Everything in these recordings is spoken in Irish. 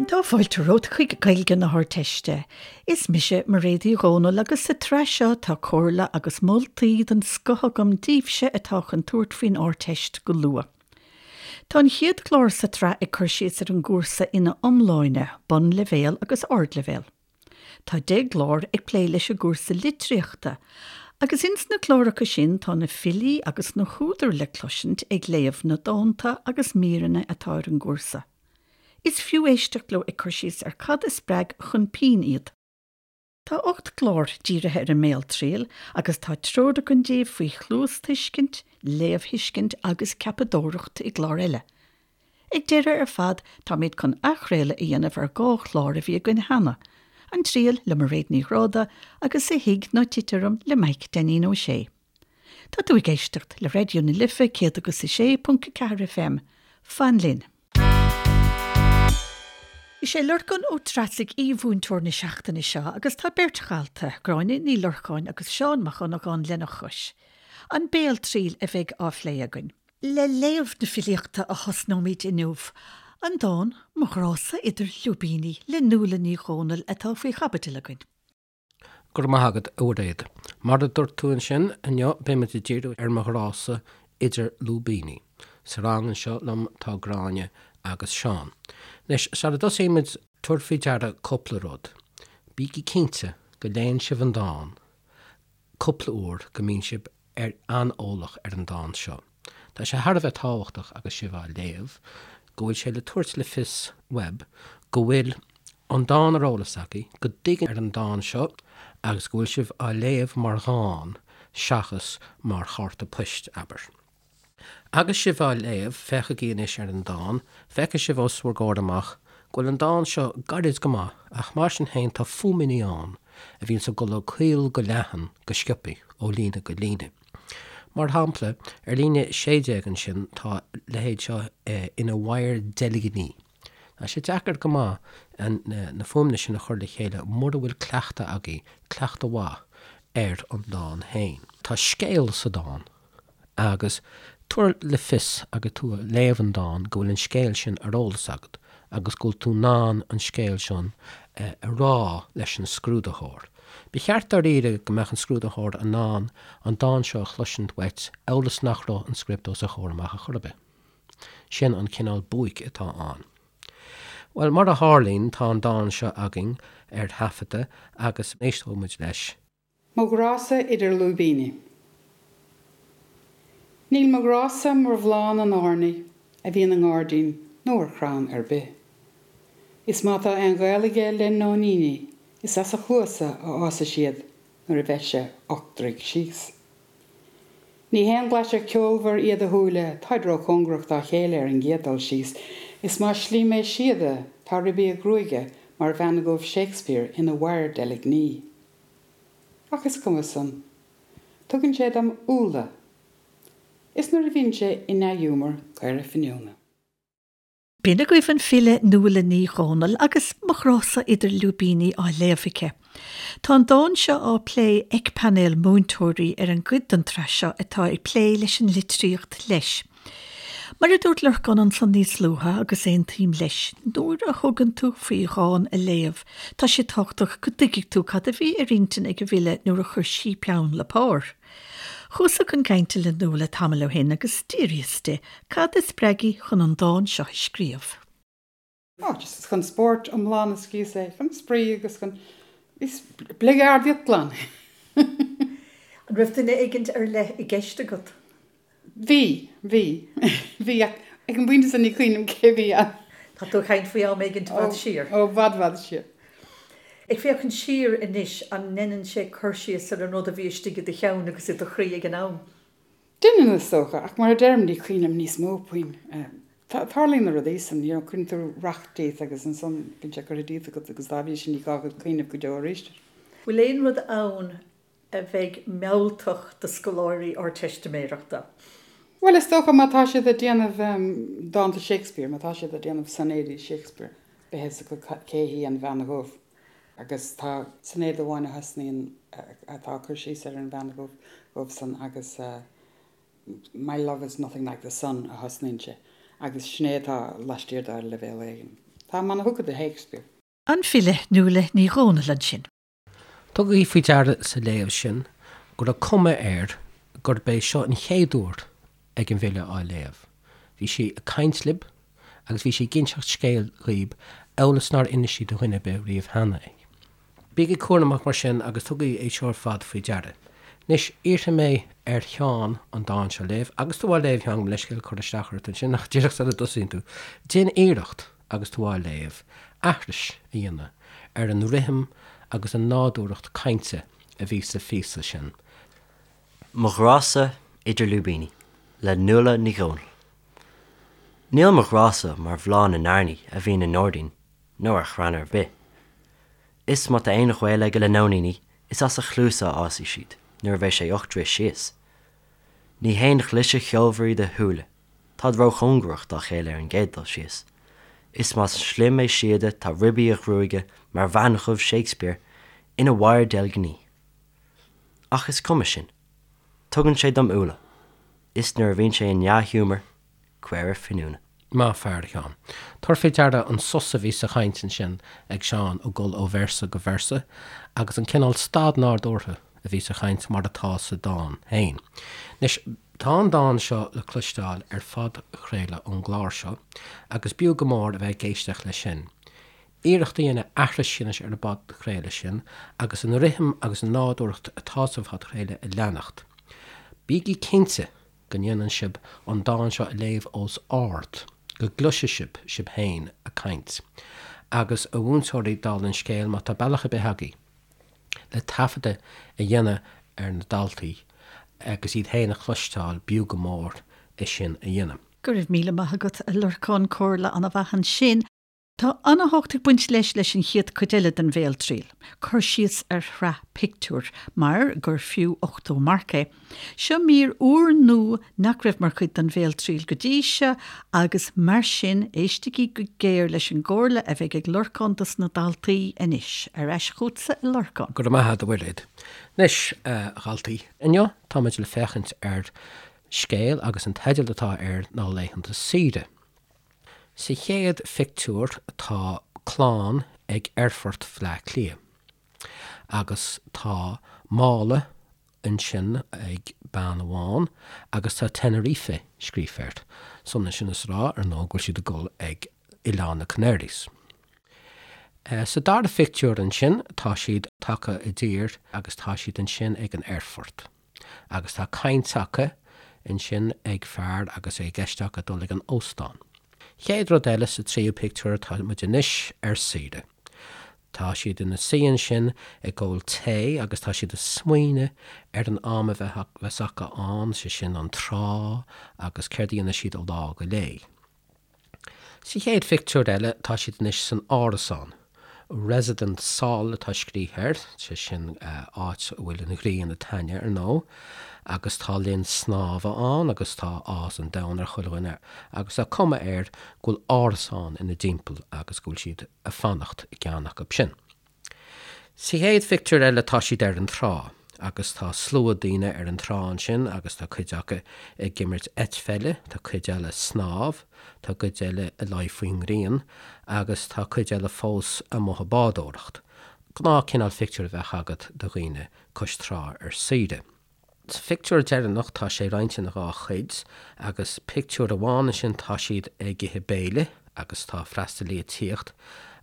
Tá fáilte romhat chuig Gaeilge na hArdteiste. Is mise Mairéad Uí Dhomhnaill agus sa tsraith seo tá comhairle agus moltaí den scoth agam daoibhse atá chun tabhairt faoin Ardteist go luath. Tá an chéad chlár sa tsraith ag cur síos ar an gcúrsa ina iomláine, bunleibhéal agus ardleibhéal. Tá 10 gclár ag plé leis an gcúrsa litríochta, agus ins na cláracha sin tá na filí agus na húdair le cloisint ag léamh na dánta agus míreanna atá ar an gcúrsa. Is fiú éisteacht leo ag cur síos ar cad a spreag chun pinn iad. Tá 8 gclár dírithe ar an mbéaltriail agus tá treoir againn daoibh faoi chluastuiscint, léamhthuiscint agus ceapadóireacht i gclár eile. Ag deireadh ar fad táimid chun athchraoladh a dhéanamh ar 2 chlár a bhí againn cheana, An Triail le Mairéad Ní Ghráda agus A Thig Ná Tit Orm le Maidhc Dainín Ó Sé. Tá tú ag éisteacht le Raidió na Life 106.4 FM. Fan linn! Is é Lorcán Ó Treasaigh aoi-mhúinteoir na seachtaine seo agus tá beirt dhalta, Gráinne Ní Lorcáin agus Seán Mac Dhonnagáin lena chois. An béaltriail a bheidh á phlé againn. Le léamh na filíochta a thosnóimid inniu, an dán 'Mo Ghrá-sa Idir Lúibíní' le Nuala Ní Dhomhnaill atá faoi chaibidil againn. Go raibh maith agat, a Mhairéad. Mar a dúirt tú ansin, inniu beidh muid ag díriú ar Mo Ghrá-sa Idir Lúibíní. Sa rang anseo liom tá Gráinne agus Seán. Anois, sara dtosaímid, tabhair faoi deara cúpla rud. Bígí cinnte go léann sibh an dán cúpla uair go mbíonn sibh ar an-eolach ar an dán seo. Tá sé thar a bheith tábhachtach agus sibh á léamh go bhfuil sé le tabhairt le fios uaibh go bhfuil an dán ar eolas agaibh, go dtuigeann ar an dán seo agus go bhfuil sibh á léamh mar dhán seachas mar chárta poist, abair. Agus sibh á léamh, féachaigí anois ar an dán, feicfidh sibh os bhur gcomhair amach go bhfuil an dán seo gairid go maith, ach mar sin féin tá fuaimeanna ann a bhíonns ag dul ó caol go leathan go sciobthaí, ó líne go líne. Mar shampla, ar líne 16 ansin tá a leithéid seo ina mhadhar deilgní. Tá sé deacair go maith na fuaimeanna sin a chur le chéile mura bhfuil cleachtadh agaibh, cleachtadh mhaith, ar an dán féin. Tá scéal sa dán. Agus tabhair le fios agus tú ag léamh an dáin go bhfuil an scéal sin ar eolas agat agus go bhfuil tú in ann an scéal sin a rá leis an scrúdaitheoir. Ba cheart dáiríre go mbeadh an scrúdaitheoir in ann an dán seo a chloisint uait amhail is nach raibh an script os a chomhair amach ar chor ar bith. Sin an cineál buaic atá ann. Bhuel, mar a tharlaíonn, tá an dán seo againn ar taifeadadh agus éisteoidh muid leis. Mo ghrása idir lúibíní. Níl mo ghrása mar bhláth na n-airní a bhíonn i ngairdín nó ar chrann ar bith. Is má tá aon ghaol aige le nóiníní is as a chluasa a fhásfaidh siad nuair a bheas sé ochtroigh síos. Ní haon ghlaisir ceolmhar iad a shúile, táid róchóngarach dá chéile ar an gcéad dul síos, is más slí mé síoda tá ribí a ghruaige mar bhean dhubh Shakespeare ina mhadhar deilgní. Ach is cuma san. Tugann sé dom úlla. Is nuair a bhíonn sé i ndea-ghiúmar, caora finiúna. B'in agaibh an file Nuala Ní Dhomhnaill agus Mo Ghrása Idir Lúibíní á léamh aici. Tá an dán seo á plé ag painéal múinteoirí ar an gcuid den tsraith seo atá ag plé leis an litríocht leis. Mar a dúirt Lorcán ansan níos luaithe, agus aontaím leis, nuair a thugann tú faoi dhán a léamh, tá sé tábhachtach go dtuigfidh tú cad a bhí ar intinn ag an bhfile nuair a chuir sí peann le pár. Chuas-sa chun cainte le Nuala tamall ó shin agus d'fhiafraíos di cad a spreag í chun an dán seo a scríobh. Oh, just chun spóirt iomlán a scríos é, chun spraoi agus chun, is bligeardaíocht glan. An raibh duine éigint ar leith i gceist agat? Bhí, bhí, bhí ach ag an bpointe sin ní cuimhin liom cé bhí ann. Tá tú ag caint faoi am éigint i bhfad siar. Ó, i bhfad, bhfad siar. Ag féachaint siar anois, an ndeineann sé cur síos ar an rud a bhí istigh i do cheann agus i do chroí ag an am? Deineann, is dócha, ach mar a deirim, ní cuimhin liom níos mó puinn. Tarlaíonn na rudaí san, you know, cuireann tú racht díot agus ansan bíonn sé curtha díot agat agus dá bhrí sin ní gá duit cuimhneamh go deo arís air. Bhfuil aon rud ann a bheidh mealltach do scoláirí Ardteistiméireachta? Bhuel, is dócha má tá siad ag déanamh dánta Shakespeare, má tá siad ag déanamh soinéidí Shakespeare, beidh a fhios acu cé hí an Bhean Dhubh. Agus tá soinéad amháin a thosnaíonn, atá ag cur síos ar an bhean dhubh san agus My love is nothing like the sun a thosnaíonn sé agus sin é atá laistiar de ar leibhéal éigin. Táim ana-thugtha do Shakespeare. An file Nuala Ní Dhomhnaill ansin. Tugaigí faoi deara sa léamh sin go raibh cuma air gurb é seo an chéad uair ag an bhfile á léamh. Bhí sí ag caint libh agus bhí sí ag inseacht scéil dhaoib amhail is nár inis sí do dhuine ar bith riamh cheana é. Bígí cúramach mar sin agus tugaigí é seo ar fad faoi deara. Anois, iarrfaidh mé ar Sheán an dán seo a léamh, agus tú á léamh, a Sheáin, gabh mo leithscéal cur isteach ort ansin, ach díreach sula dtosaíonn tú, déan iarracht agus tú á léamh, aithris a dhéanamh ar an rithim agus an nádúrthacht cainte a bhí sa phíosa sin. Mo Ghrá-sa Idir Lúibíní le Nuala Ní Dhomhnaill. Níl mo ghrá-sa mar bhláth na n-airní a bhíonn i ngairdín nó ar chrann ar bith. Is má tá aon ghaol aige le nóiníní is as a chluasa a fhásfaidh siad nuair a bheidh sé 8 dtroith síos. Ní haon ghlaise cheolmhar iad a shúile, táid róchóngarach dá chéile ar an gcéad dul síos. Is más slim é síoda tá ribí a ghruaige mar bhean dhubh Shakespeare ina wire deilgní. Ach is cuma sin. Tugann sé dom úlla. Is nuair a bhíonn sé i ndea-ghiúmar, caora finiúna. Maith fear, a Sheáin. Tabhair faoi deara an sos a bhí sa chaint ansin ag Seán ag dul ó véarsa go véarsa agus an cineál stad nádúrtha a bhí sa chaint mar atá sa dán féin. Anois, tá an dán seo le cloisteáil ar phodchraoladh ón gclár seo agus b'fhiú go mór a bheith ag éisteacht leis sin. Iarracht a dhéanamh aithris a dhéanamh ar an bpodchraoladh sin agus an rithim agus an nádúrthacht atá sa phodchraoladh a leanacht. Bígí cinnte go ndéanann sibh an dán seo a léamh os ard, go gcloisfidh sibh sibh féin ag caint. Agus, a mhúinteoirí, dála an scéil, má tá bealach ar bith agaibh le taifeadadh a dhéanamh ar na daltaí agus iad féin a chloisteáil, b'fhiú go mór é sin a dhéanamh. Go raibh míle maith agat, a Lorcáin, comhairle an-mhaith ansin. Tá an-tábhacht ag baint leis leis an chéad chuid eile den bhéaltriail, cur síos ar shraith pictiúr, mar gur fiú 80 marc é. Seo mír úrnua nach raibh mar chuid den bhéaltriail go dtí seo agus mar sin éistigí go géar leis an gcomhairle a bheidh ag Lorcán dos na daltaí anois. Ar ais chugatsa a Lorcáin. Go raibh maith agat a Mhuiréad. Anois, a dhaltaí, inniu táimid le féachaint ar scéal agus an teideal atá air ná Laethanta Saoire. Sa chéad phictiúr tá clann ag aerfort Bhleá Cliath agus tá mála ansin ag bean amháin agus tá Tenerife scríofa air. Is ionann sin is a rá, ar ndóigh, go bhfuil siad ag dul ag Oileán na Canaries. Sa dara phictiúr ansin tá siad tagtha i dtír agus tá siad ansin ag an aerfort. Agus tá caint acu ansin ag fear agus é i gceist acu dul ag an óstán. Chéad rud eile sa tríú pictiúr tá muid anois ar saoire. Tá siad ina suí ansin ag ól tae agus tá siad ag smaoineamh ar an am a bheas acu ann, sé sin an trá agus céard a dhéanfaidh siad ó lá go lá. Sa chéad phictiúr eile tá siad anois san árasán. Residence Sol atá scríofa air, sé sin áit a bhfuil an ghrian ag taitneamh ar ndóigh, agus tá linn snámha ann agus tá áthas an domhain ar chuile dhuine agus tá cuma air go bhfuil árasán ina dtimpeall agus go bhfuil siad ag fanacht i gceann acu sin. Sa chéad phictiúr eile tá siad ar an trá agus tá slua daoine ar an trá ansin agus tá cuid acu ag imirt eitpheile, tá cuid eile ag snámh, tá cuid eile ag luí faoin ngrian agus tá cuid eile fós amuigh ag bádóireacht. Gnáth cineál phictiúr a bheadh agat de dhaoine cois trá ar saoire. Sa phictiúr deireanach tá sé roinnte ina dhá chuid agus pictiúr amháin ansin tá siad ag ithe béile agus tá freastalaí ag tíocht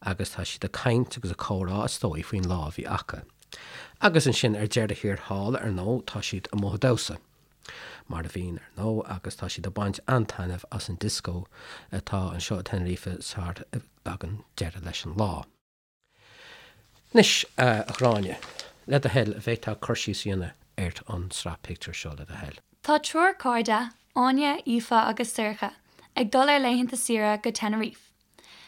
agus tá siad ag caint agus ag comhrá is dóigh faoin lá a bhí acu. Agus ansin ar deireadh thiar thall ar ndóigh tá siad amuigh ag damhsa mar a bhíonn ar ndóigh agus tá siad ag baint an-taitneamh as an disco atá anseo i Tenerife sar a dtagann deireadh leis an lá. Anois, a Ghráinne, le do thoil, an bhféadfá cur síos a dhéanamh ar an tsraith pictiúr seo, le do thoil? Tá triúr cairde, Áine, Aoife agus Sorcha, ag dul ar laethanta saoire go Tenerife.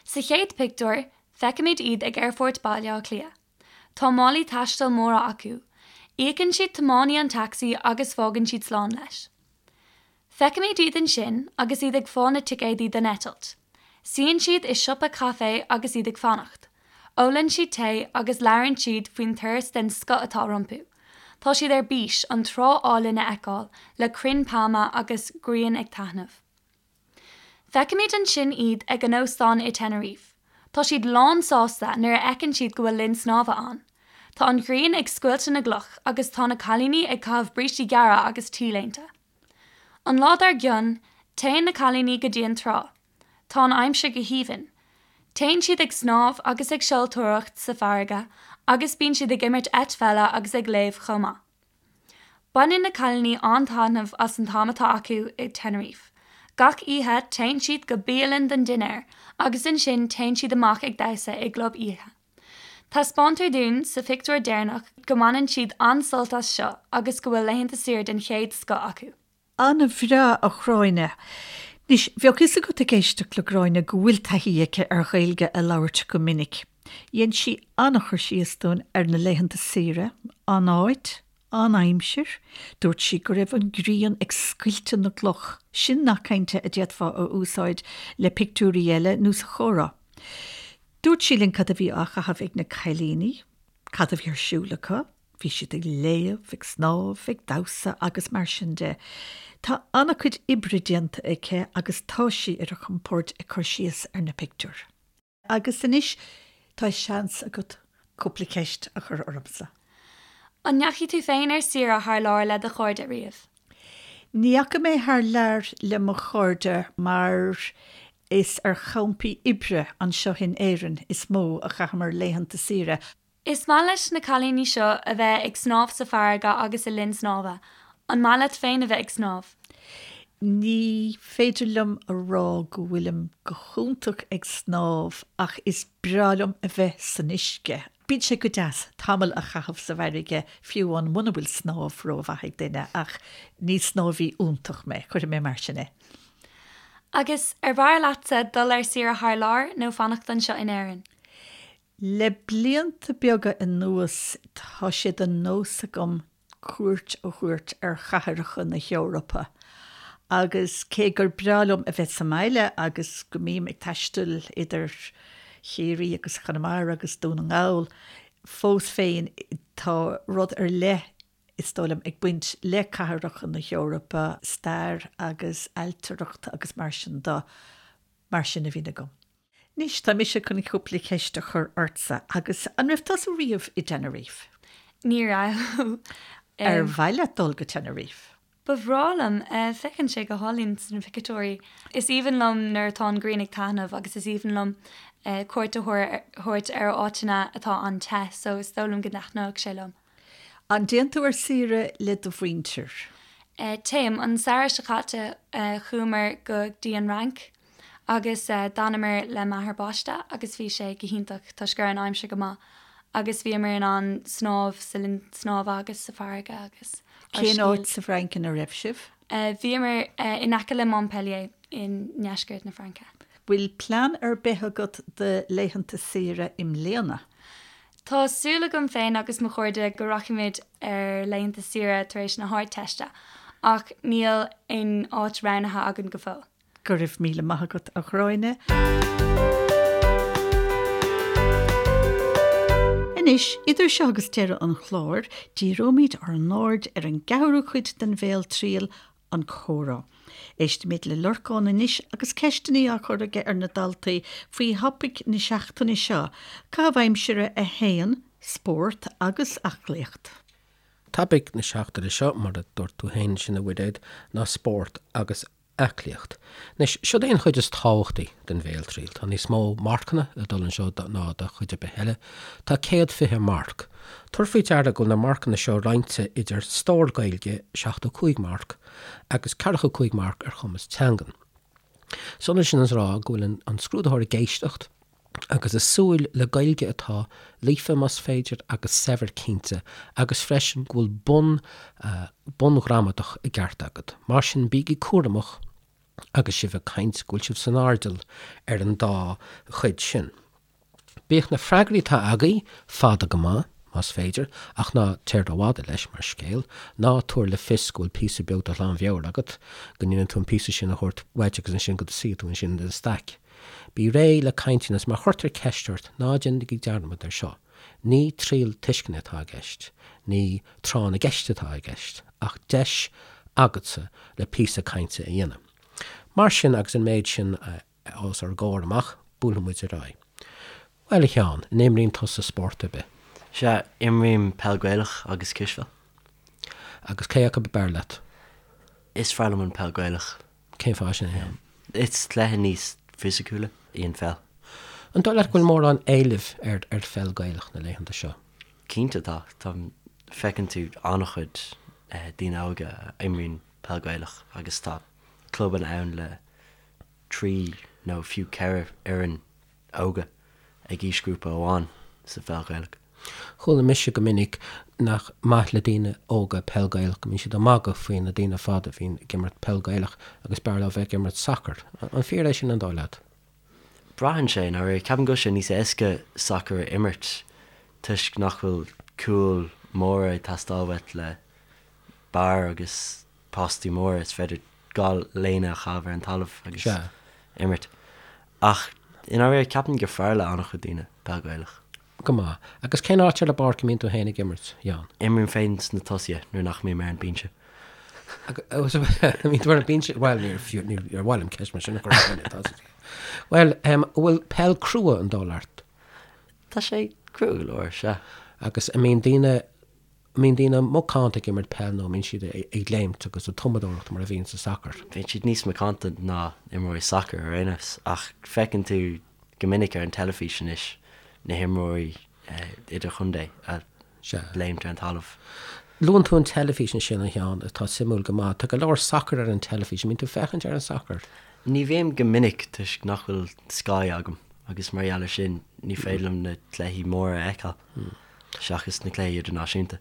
Sa chéad pictiúr, feicimid iad ag Aerfort Baile Átha Cliath. Tá málaí taistil móra acu. Íocann siad tiománaí an tacsaí agus fágann siad slán leis. Feicimid iad ansin agus iad ag fáil na ticéadaí don eitilt. Suíonn siad i siopa caife agus iad ag fanacht. Ólann siad tae agus labhrann siad faoin turas den scoth atá rompu. Tá siad ar bís an trá álainn a fheiceáil le crainn pailme agus grian ag taitneamh. Feicimid ansin iad ag an óstán i Tenerife. Tá siad lán sásta nuair a fheiceann siad go bhfuil linn snámha ann. Tá an ghrian ag scoilteadh na gcloch agus tá na cailíní ag caitheamh brístí gearra agus T-léinte. An lá dár gcionn, téann na cailíní go dtí an trá. Tá an aimsir go haoibhinn. Téann siad ag snámh agus ag seoltóireacht sa bhfarraige agus bíonn siad ag imirt eitpheile agus ag léamh chomh maith. Baineann na cailíní an-taitneamh as an t-am atá acu i Tenerife. Gach oíche téann siad go bialann don dinnéar agus ansin téann siad amach ag damhsa i gclub oíche. Taispeántar dúinn sa phictiúr deireanach go mbaineann siad an-sult as seo agus go bhfuil laethanta saoire den chéad scoth acu. An-bhreá, a Ghráinne. Anois, bheadh fhios agat ag éisteacht le Gráinne go bhfuil taithí aici ar Ghaeilge a labhairt go minic. Dhein sí an-chur síos dúinn ar na laethanta saoire, an áit, an aimsir, dúirt sí go raibh an ghrian ag scoilteadh na gcloch, sin nath cainte a d'fhéadfá a úsáid le pictiúirí eile nó sa chomhrá. Dúirt sí linn cad a bhí á chaitheamh ag na cailíní, cad a bhí ar siúl acu, Bhí siad ag léamh, ag snámh, ag damhsa agus mar sin de. Tá an-chuid oibre déanta aici agus tá sí ar a compord ag cur síos ar na pictiúir. Agus anois tá seans agat cúpla ceist a chur ormsa. An ndeachaigh tú féin ar saoire thar lear le do chairde riamh? Ní dheachaigh mé thar lear le mo chairde mar is ar champaí oibre anseo in Éirinn is mó a chaitheamar laethanta saoire. Is maith leis na cailíní seo a bheith ag snámh sa bhfarraige agus i linn snámha. An maith leat féin a bheith ag snámh? Ní féidir liom a rá go bhfuilim go hiontach ag snámh ach is breá liom a bheith san uisce. Bíonn sé go deas tamall a chaitheamh sa bhfarraige fiú amháin muna bhfuil snámh rómhaith ag duine ach ní snámhaí iontach mé, cuirfidh mé mar sin é. Agus ar bhfearr leatsa dul ar saoire thar lear nó fanacht anseo in Éirinn? Le blianta beaga anuas tá sé de nós agam cuairt a thabhairt ar chathracha na hEorpa agus cé gur breá liom a bheith sa mbaile agus go mbím ag taisteal idir Chiarraí agus Conamara agus Dún na nGall, fós féin tá rud ar leith, is dóigh liom, ag baint le cathracha na hEorpa, stair agus ailtireacht agus mar sin de, mar sin a bhíonn agam. Anois, tá mise chun cúpla ceist a chur ortsa agus an raibh tusa riamh i dTenerife? Ní raibh. Ar mhaith leat dul go Tenerife? Ba bhreá liom. Féachann sé go hálainn sna pictiúirí. Is aoibhinn liom nuair atá an ghrian ag taitneamh agus is aoibhinn liom cuairt a thabhairt ar áiteanna atá an-te so is dóigh liom go dtaitneodh sé liom. An dtéann tú ar saoire le do mhuintir? Téim. An samhradh seo caite chuamar go dtí an Fhrainc agus d'fhanamar le m'athair baiste agus bhí sé go hiontach toisc go raibh an aimsir go maith agus bhíomar in ann snámh sa linn snámha agus sa bhfarraige agus ár Cén áit sa bhFrainc ina raibh sibh? Bhíomar in aice le Montpellier i ndeisceart na Fraince. Bhfuil plean ar bith agat do laethanta saoire i mbliana? Tá súil agam féin agus mo chairde go rachaimid ar laethanta saoire tar éis na hArdteiste, ach níl aon áit roghnaithe againn go fóill. Go raibh míle maith agat, a Ghráinne. Anois, idir seo agus deireadh an chláir, díreoimid ár n-aird ar an gceathrú cuid den bhéaltriail, an comhrá. Éistfimid le Lorcán anois agus ceisteanna á cur aige ar na daltaí faoi thopaic na seachtaine seo, Caitheamh Aimsire 1, Spórt agus Aclaíocht. Topaic na seachtaine seo, mar a dúirt tú féin ansin a Mhuiréad, ná spórt agus aclaíocht. Anois, siod é an chuid is tábhachtaí den bhéaltriail. Tá níos mó marcanna ag dul anseo ná do chuid ar bith eile. Tá 120 marc. Tabhair faoi deara go bhfuil na marcanna seo roinnte idir stór Gaeilge, 75 marc, agus 45 marc ar chumas teangan. Is ionann sin is a rá go bhfuil an scrúdaitheoir ag éisteacht agus ag súil le Gaeilge atá líofa más féidir agus saibhir cinnte agus freisin go bhfuil bun bunghramadach i gceart agat. Mar sin bígí cúramach agus sibh ag caint go bhfuil sibh san airdeall ar an dá chuid sin. Bíodh na freagraí atá agaibh fada go maith, más féidir, ach ná téir rófhada leis, mar scéal. Ná tabhair le fios go bhfuil píosa beag de ghlanmheabhair agat, go ndéanann tú an píosa sin a thabhairt uait agus ansin go suífidh tú ansin i do staic. Bí réidh le caint agus má chuirtear ceist ort, ná déanaigí dearmad air seo. Ní triail tuisceana atá i gceist, ní tráth na gceist atá i gceist, ach deis agatsa le píosa cainte a dhéanamh. Mar sin, agus an méid sin a. os ár gcomhair amach, buailfidh muid ar aghaidh. Bhuel, a Sheáin, an imríonn tusa spórt ar bith? Sea, imrím peil Gaelach agus cispheil. Agus cé acu ab fhearr leat? Is fearr liom an peil Gaelach. Cén fáth sin, a Sheáin? Is cluiche níos fisiciúla í an pheil. An dóigh leat go bhfuil mórán éilimh ar ar pheil Gaelach na laethanta seo? Cinnte tá. Tá, feiceann tú an-chuid daoine óga a imríonn peil Gaelach agus tá clubanna ann le 3 nó fiú 4 fhoireann óga ag aoisghrúpa amháin sa pheil Ghaelach. Chuala mise go minic nach maith le daoine óga peil Gaelach, go mbíonn siad ag magadh faoi na daoine fada a bhíonn ag imirt peil Gaelach agus b'fhearr leo bheith ag imirt sacair. An fíor é sin an dóigh leat? Braitheann sé, i ndáiríre. Ceapaim go bhfuil sé níos éasca sacar a imirt toisc nach bhfuil cúil móra ag teastáil uait le barr agus postaí móra, is féidir 2 léine a chaitheamh ar an talamh agus imirt. Ach i ndáiríre, ceapaim gur fearr le an-chuid daoine peil Ghaelach. Go maith. Agus cén áit ar an bpáirc a mbíonn tú féin ag imirt, a Sheáin? Imrím féin sna tosaithe nuair nach mbím ar an binse. Bíonn tú ar an binse? Bhuel, níor fiú, níor mhaith liom ceist mar sin a chur ar dhuine, tá a fhios agat. Bhuel, an bhfuil peil crua an dóigh leat? Tá sé crua go leor, sea. Agus an mbíonn daoine An mbíonn daoine macánta ag imirt peil nó an mbíonn siad ag léimt agus ag tumadóireacht mar a bhíonn sa sacar? Bíonn siad níos macánta ná imreoirí sacair ar aon nós ach feiceann tú go minic ar an teilifís anois na himreoirí idirchontae ag léimt ar an talamh. Luann tú an teilifís ansin, a Sheáin, atá suimiúil go maith. Tá go leor sacair ar an teilifís. An mbíonn tú ag féachaint ar an sacar? Ní bhím go minic toisc nach bhfuil Sky agam agus mar gheall air sin ní féidir liom na cluichí móra a fheiceáil. seachas na cluichí idirnáisiúnta.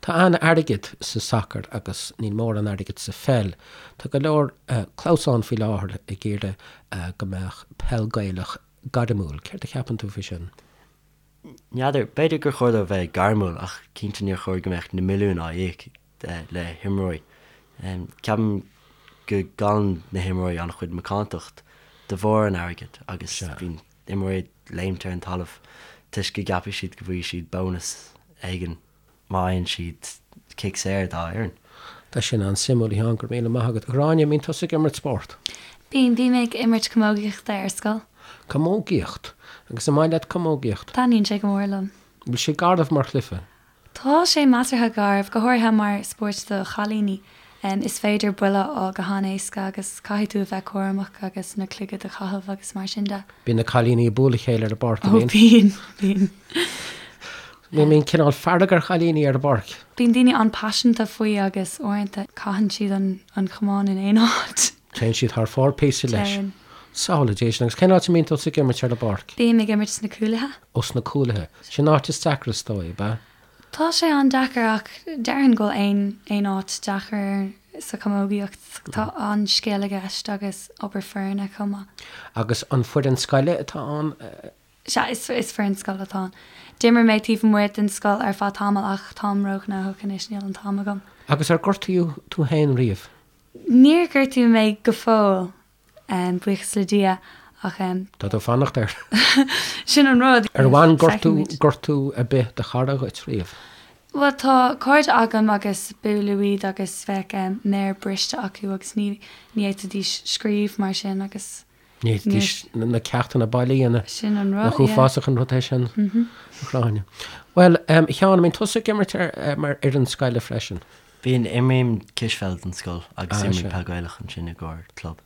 Tá an-airgead sa sacar agus níl mórán airgid sa pheil. Tá go leor clamhsán faoi láthair ag iarraidh go mbeadh peil Gaelach gairmiúil. Céard a cheapann tú faoi sin? N'fheadar. B'fhéidir gur chóir dó bheith gairmiúil ach cinnte níor chóir go mbeadh na milliúin á íoc le himreoirí. Ceapaim go gcailleann na himreoirí an-chuid macántacht de bharr an airgid agus bíonn imreoirí ag léimt ar an talamh toisc go gceapfaidh siad go bhfaighidh siad bónas éigin má fhaigheann siad cic saor dá fhoireann. Tá sin an-suimiúil, a Sheáin, go raibh míle maith agat. A Ghráinne, an mbíonn tusa ag imirt spórt? Bíonn, bím ag imirt camógaíochta ar scoil. Camógaíocht? Agus an maith leat camógaíocht? Taitníonn sé go mór liom. Bhfuil sé garbh mar chluiche? Tá sé measartha garbh, go háirithe mar spórt do chailíní. Is féidir buille a fháil go han-éasca agus caithfidh tú a bheith cúramach agus na clogaid a chaitheamh agus mar sin de. Bíonn na cailíní ag bualadh a chéile ar an bpáirc, an mbíonn? Ó bíonn, bíonn. Bíonn cineál fearg ar chailíní ar an bpáirc. Bíonn daoine an-paiseanta faoi agus uaireanta caitheann siad an camán in aon áit. Téann siad thar fóir píosa leis. Téann. Samhlaigh Dia sin. Agus cén áit a mbíonn tusa ag imirt ar an bpáirc? Bím ag imirt sna cúlaithe. Ó, sna cúlaithe. Sin an áit is deacra is dóigh, ab ea? Tá sé an-deacair ach déarfainn go bhfuil aon aon áit deacair sa chamógaíocht. Tá an-scil i gceist agus obair foirne chomh maith. Agus an foireann scoile atá ann? Sea, is is foireann scoile atá ann. D'imir mé taobh amuigh den scoil ar feadh tamaill ach táim róghnóthach anois, níl an t-am agam. Agus ar gortaíodh tú féin riamh? Níor gortaíodh mé go fóill, buíochas le Dia, ach. Tá tú ag fanacht air. Sin an rud. Ar bhain gortú, gortú ar bith do chara dhuit riamh? Bhuel, tá cairde agam agus buaileadh iad agus bheadh méar briste acu agus ní ní fhéadfaidís scríobh mar sin agus. Ní fhéadfaidís na ceachtanna baile a dhéanamh. Sin an rud, Nach uafásach an rud é sin, a Ghráinne. Bhuel, a Sheáin, an mbíonn tusa ag imirt mar fhoireann scoile freisin? Bíonn, imrím cispheil don scoil agus imrím peil Gaelach ansin i gcomhair club.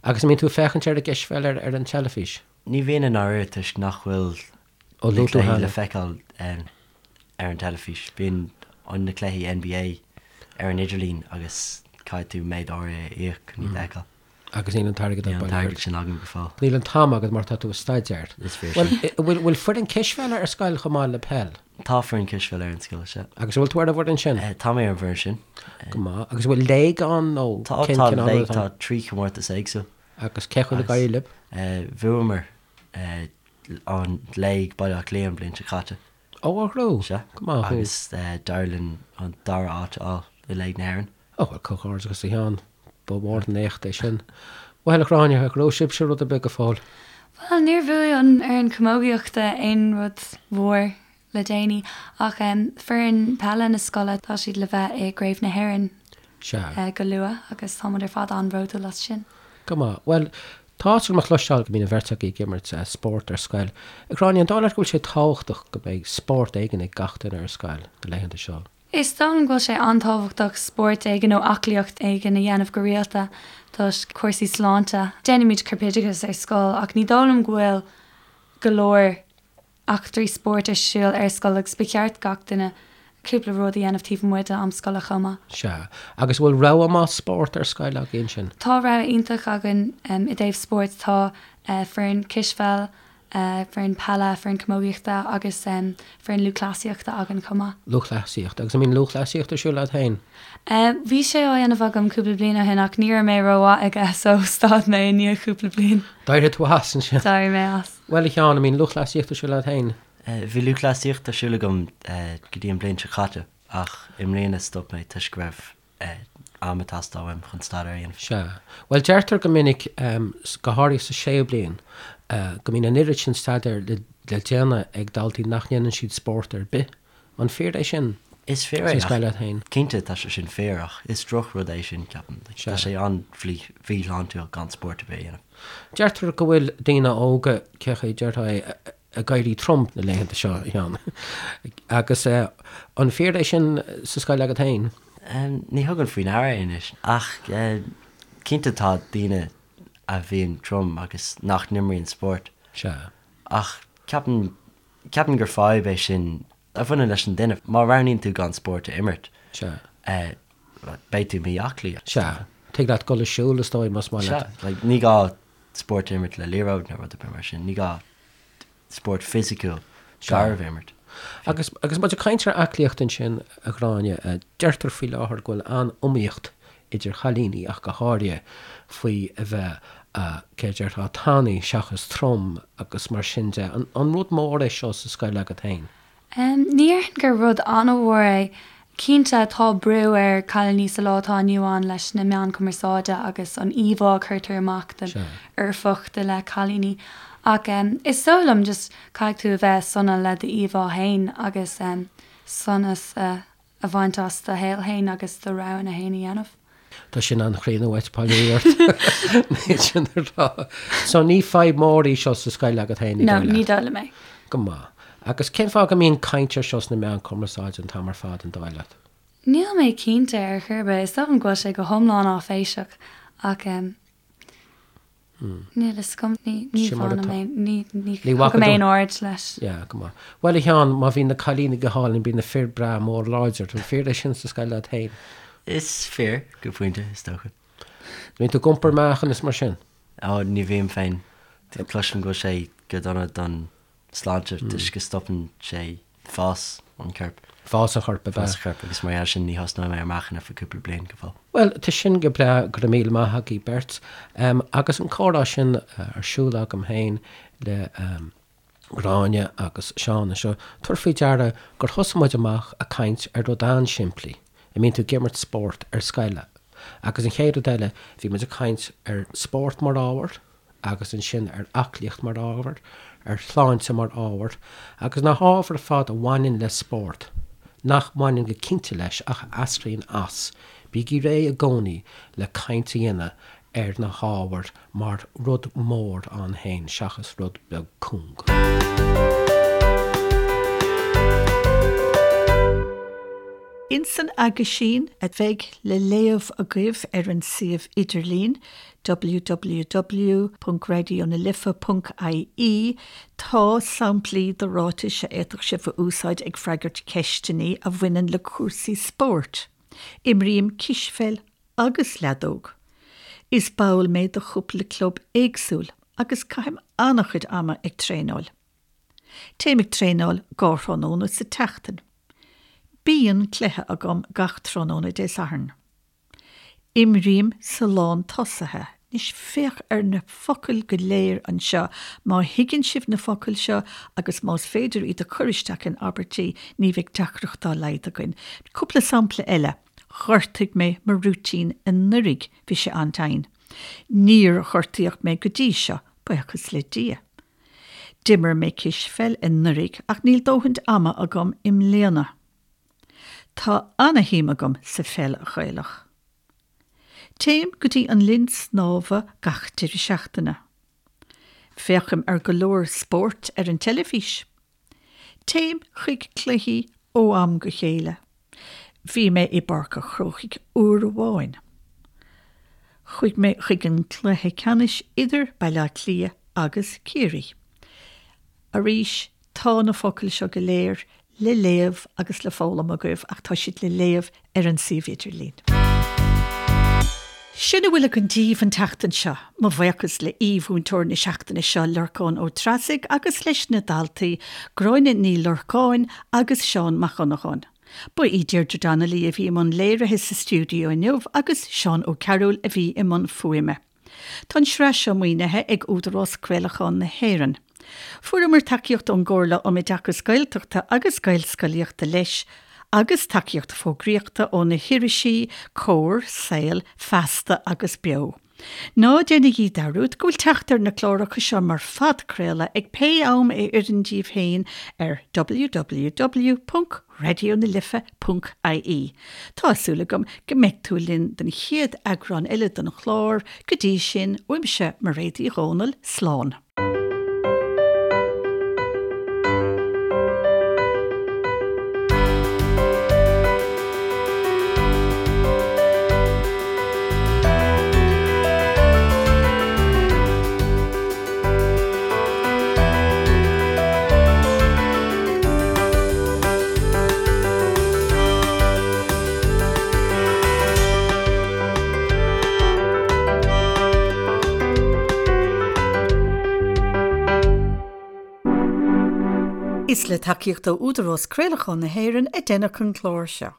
Agus an mbíonn tú ag féachaint ar an gcispheil ar an teilifís? Ní bhíonn i ndáiríre toisc nach bhfuil na cluichí le feiceáil ar an teilifís. Bíonn na cluichí NBA ar an idirlíon agus caithfidh tú méid áirithe a íoc chun iad a fheiceáil. Agus níl an t-airgead Níl an t-airgead sin agam go fóill. Níl an t-am agat mar tá tú ag staidéar. Is fíor sin. Bhuel, bhfuil foireann cispheile ar scoil chomh maith le peil? Tá foireann cispheile ar an scoil, sea. Agus an bhfuil tú ar an bhfoireann sin? Tá mé ar an bhfoireann sin. Go maith. Agus an bhfuil léig ann nó Tá, cén tá cineál léig, rud atá tá trí chomórtas éagsúil. Agus cén chaoi ar éirigh libh? Bhuamar an léig Baile Átha Cliath an bhliain seo caite. Ó, a ghrú! Sea. Go maith thú. Agus d'éirigh linn an dara háit a fháil i Léig na hÉireann. Ó, bhuel, comhghairdeachas a Sheáin. Ba mhór an éacht é sin. Bhuel, a Ghráinne, ar ghnóthaigh sibhse rud ar bith go fóill? Bhuel, níor bhuaigh an fhoireann camógaíochta aon rud mhór le déanaí, ach foireann peile na scoile, tá siad le bheith i gCraobh na hÉireann Sea. go luath agus táimid ar fad an-bhródúil as sin. Go maith. Bhuel,. Tá áthas orm a chloisteáil go mbíonn an bheirt agaibh ag imirt spórt ar scoil. A Ghráinne, an dóigh leat go bhfuil sé tábhachtach go mbeidh spórt éigin ag gach duine ar scoil na laethanta seo? Is dóigh liom go bhfuil sé an-tábhachtach spórt éigin nó aclaíocht éigin a dhéanamh go rialta toisc cúrsaí sláinte. Déanaimid corpoideachas ar scoil ach ní dóigh liom go bhfuil go leor eachtraí spóirt ar siúl ar scoil agus ba cheart gach duine cúpla rud a dhéanamh taobh amuigh de am scoile chomh maith. Sea. Agus an bhfuil rogha maith spórt ar scoil agaibh ansin? Tá rogha iontach againn i dtaobh spóirt. Tá foireann cispheil, foireann peile, foireann camógaíochta agus foireann lúthchleasaíochta againn chomh maith. Lúthchleasaíocht. Agus an mbíonn lúthchleasaíocht ar siúl agat féin? Bhí sé á dhéanamh agam cúpla bliain ó shin ach ní raibh mé rómhaith aige so stad mé i ndiaidh cúpla bliain. D'éirigh tú as ansin? D'éirigh mé as. Bhuel, a Sheáin, an mbíonn lúthchleasaíocht ar siúl agat féin? Bhí lúthchleasaíocht ar siúl agam go dtí an bhliain seo caite ach i mbliana stop mé toisc go raibh am ag teastáil uaim chun staidéar a dhéanamh. Sea. Bhuel, deirtear go minic, go háirithe sa séú bliain, go mbíonn an oiread sin staidéir le déanamh ag daltaí nach ndéanann siad spórt ar bith. An fíor é sin? Is fíor é, ach cinnte tá sé sin fíor ach is drochrud é sin, ceapaim. Tá sé an-mhíshláintiúil gan spórt ar bith a dhéanamh. Deirtear go bhfuil daoine óga, cé chaoi a déarfá é, ag éirí trom na laethanta seo, a Sheáin. Agus an fíor é sin sa scoil agat féin? Ní thugaim faoi ndeara é anois ach cinnte tá daoine a bhíonn trom agus nach n-imríonn spórt. Sea. Ach ceapaim Ceapaim gur fadhb é sin a bhaineann leis an duine. Má roghnaíonn tú gan spórt a imirt, beidh tú mí-aclaí. Sea. Tig leat dul ag siúl, is dóigh, más maith leat. Sea. Like, ní gá spórt a imirt le liathróid nó rud ar bith mar sin. Ní gá spórt fisiciúil garbh a imirt. Agus, agus muid ag caint ar aclaíocht ansin, a Ghráinne, deirtear faoi láthair go bhfuil an-iomaíocht idir chailíní ach go háirithe, faoi a bheith, cé a déarfá, tanaí seachas trom agus mar sin de. An rud mór é seo sa scoil agat féin? Ní déarfainn gur rud an-mhór é. Cinnte, tá brú ar chailíní sa lá atá inniu ann leis na meáin chumarsáide agus an íomhá a chuirtear amach den fhoirfeacht i leith cailíní. Ach is dóigh liom just caithfidh tú a bheith sona le d'íomhá féin agus sonas a a bhaint as do shaol fhéin agus do roghanna fhéin a dhéanamh. Tá sin an-chríonna uait, poiblí ort. Níl sin a rá. So ní fadhb mhór í seo sa scoil agat féin, ní dóigh leat? No, ní dóigh liom é. Go maith. Agus cén fáth go mbíonn caint ar seo sna meáin cumarsáide an t-am ar fad, an dóigh leat? Níl mé cinnte ar chor ar bith. Is dóigh liom go bhfuil sé go hiomlán áiféiseach ach Níl a fhios agam. Ní ní Sin mar bhainim atá. aon ní ní Ní bhfaca thugaim tú. aon aird leis. Yeah, go maith. Bhuel, a Sheáin, má bhíonn na cailíní go hálainn, bíonn na fir breá mór láidir. An fíor é sin sa scoil leat féin? Is fíor, go pointe, is dócha. Bíonn tú ag iompar meáchan is mar sin? Ó, ní bhím féin. Cloisim go bhfuil sé go dona don sláinte toisc go stopann sé fás an choirp. Fás an choirp, ab ea? Fás an choirp agus mar gheall sin ní thosnóidh mé ar meáchan ar feadh cúpla bliain go fóill. Bhuel, tá sin go breá, go raibh míle maith agaibh beirt. Agus an comhrá sin ar siúl agam féin le Gráinne agus Seán anseo, tabhair faoi deara gur thosaigh muid amach ag caint ar rud an-simplí, an mbíonn tú ag imirt spórt ar scoil? Agus an chéad rud eile, bhí muid ag caint ar spórt mar ábhar, agus ansin ar aclaíocht mar ábhar, ar shláinte mar ábhar, agus na hábhair ar fad a bhaineann le spórt, nach mbaineann go cinnte leis ach a eascraíonn as, bígí réidh i gcónaí le caint a dhéanamh ar na hábhair mar rud mór ann féin seachas rud beag cúng. Ins an aguisín a bheidh le léamh agaibh ar an suíomh idirlín, www.raidionalife.ie, tá samplaí de ráitis a fhéadfadh sibh a úsáid ag freagairt ceisteanna a bhaineann le cúrsaí spóirt. Imrím cispheil agus leadóg. Is ball mé de chúpla club éagsúil agus caithim an-chuid ama ag traenáil. Téim ag traenáil dhá thráthnóna sa tseachtain. Bíonn cluiche agam gach tráthnóna Dé Sathairn. Imrím sa lán tosaithe. Anois féach ar na focail go léir anseo. Má thuigeann sibh na focail seo agus más féidir iad a chur isteach in abairtí, ní bheidh deacracht dá laghad againn. Cúpla sampla eile. Ghortaigh mé mo rúitín anuraidh, bhí sé an-tinn. Níor gortaíodh mé go dtí seo, buíochas le Dia. D'imir mé cispheil anuraidh ach níl dóthain ama agam i mbliana. Tá ana-shuim agam sa pheil Ghaelach. Téim go dtí an linn snámha gach deireadh seachtaine. Féachaim ar go leor spóirt ar an teilifís. Téim chuig cluichí ó am go chéile. Bhí mé i bPáirc a' Chrócaigh uair amháin. Chuaigh mé chuig an cluiche ceannais idir Baile Átha Cliath agus Ciarraí. Arís, tá na focail seo go léir le léamh agus le foghlaim agaibh ach tá siad le léamh ar an suíomh idirlín. Sin a bhfuil againn daoibh an tseachtain seo. Mo bhuíochas le aoi-mhúinteoir na seachtaine seo, Lorcán Ó Treasaigh, agus leis na daltaí, Gráinne Ní Lorcáin agus Seán Mac Dhonnagáin. Ba í Deirdre Donnelly a bhí i mbun léirithe sa stiúideo inniu agus Seán Ó Cearúil a bhí i mbun fuaime. Tá an tsraith seo maoinithe ag Údarás Craolacháin na hÉireann. Fuaireamar tacaíocht ón gComhairle um Oideachas Gaeltachta agus Gaelscolaíochta leis, agus tacaíocht fógraíochta ó na hirisí Comhar, Saol, Feasta agus Beo. Ná déanaigí dearúd go bhfuil teacht ar na cláracha seo mar phodchraoladh ag pé am a oireann díbh féin ar www. raidionalife.ie. Tá súil agam go mbeidh tú linn don chéad eagrán eile den chlár, go dtí sin, uaimse Mairéad Uí Dhomhnaill, slán. Is le tacaíocht ó Údarás Craolacháin na hÉireann a deineadh an clár seo.